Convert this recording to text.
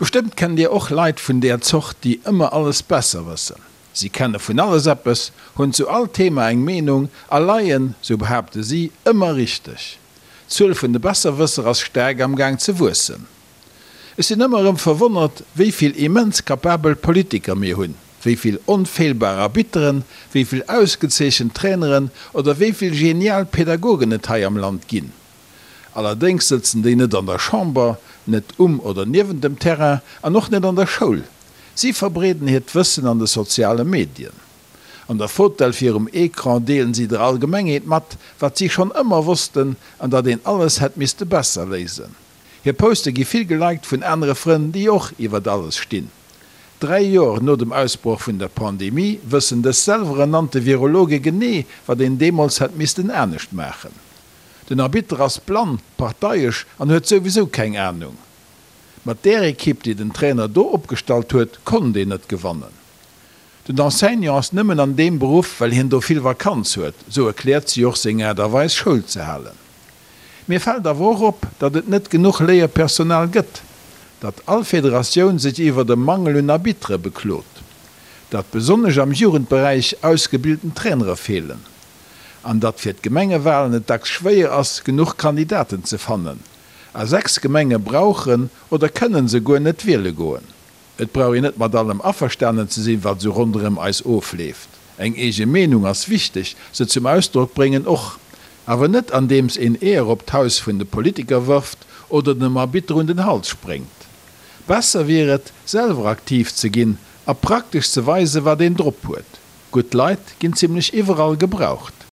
Bestëmmt kennt Dir och Leit vun där Zort, déi ëmmer alles besser wëssen. Si kenne vun alles eppes, hunn zu all Thema eng Meenung a leien, sou behaapte si, ëmmer richteg. D'Zuel vun de Besserwësser ass staark am Gaang ze wuessen. Ech sinn ëmmer erëm verwonnert, wéi vill immens kapabel Politiker mir hunn, wéi vill onfeelbar Arbitteren, wéi vill ausgezeechent Traineren oder wéi vill genial Pädagogen et hei am Land ginn. Allerdéngs sëtzen déi net an der Chamber, net um oder niewent dem Terrain an och net an der Schoul. Si verbreeden hiert Wëssen an de soziale Medien. An der Fotell virum Ecran deelen si der Allgemengheet mat, wat si schonn ëmmer wossten an datt een alles hätt misste besser léisen. Hir Poste gi vill geliked vun anere Frënn, déi och iwwert alles stinn. Dräi Joer no dem Ausbroch vun der Pandemie wëssen dës selwerernannte Virologe genee, wat een deemools hätt missten anescht maachen. Den Arbitter ass blann, parteiesch an huet souwisou keng Ahnung. Mat där Equipe déi den Trainer do opgestallt huet konnt een net gewannen. Den Enseignant ass nëmmen an deem Beruff well hien do vill Vakanz huet, sou erkläert si och seng Aart a Weis Schoul ze halen. Mir fält awer och op, datt et net genuch Léierpersonal gëtt. Datt all Federatioun sech iwwert e Mangel un Arbitere beklot. Datt besonnesch am Jugendberäich ausgebilten Trainere feelen. An datt fir d'Gemengewalen et dacks schwéier ass, genuch Kandidaten ze fannen. A 6 Gemenge brauchen oder kënnen se guer net wiele goen. Et brauch een net mat allem averstanen ze sinn, wat esou ronderëm eis ofleeft. Eng eege Meenung ass wichteg, se zum Ausdrock bréngen och. Awer net andeems een Eeër op d'Haus vun de Politiker wërft oder dem Arbitter un den Hals spréngt. Besser wier et, selwer aktiv ze ginn a praktesch ze weisen, wat een drop huet. Gutt Leit ginn zimlech iwwerall gebraucht.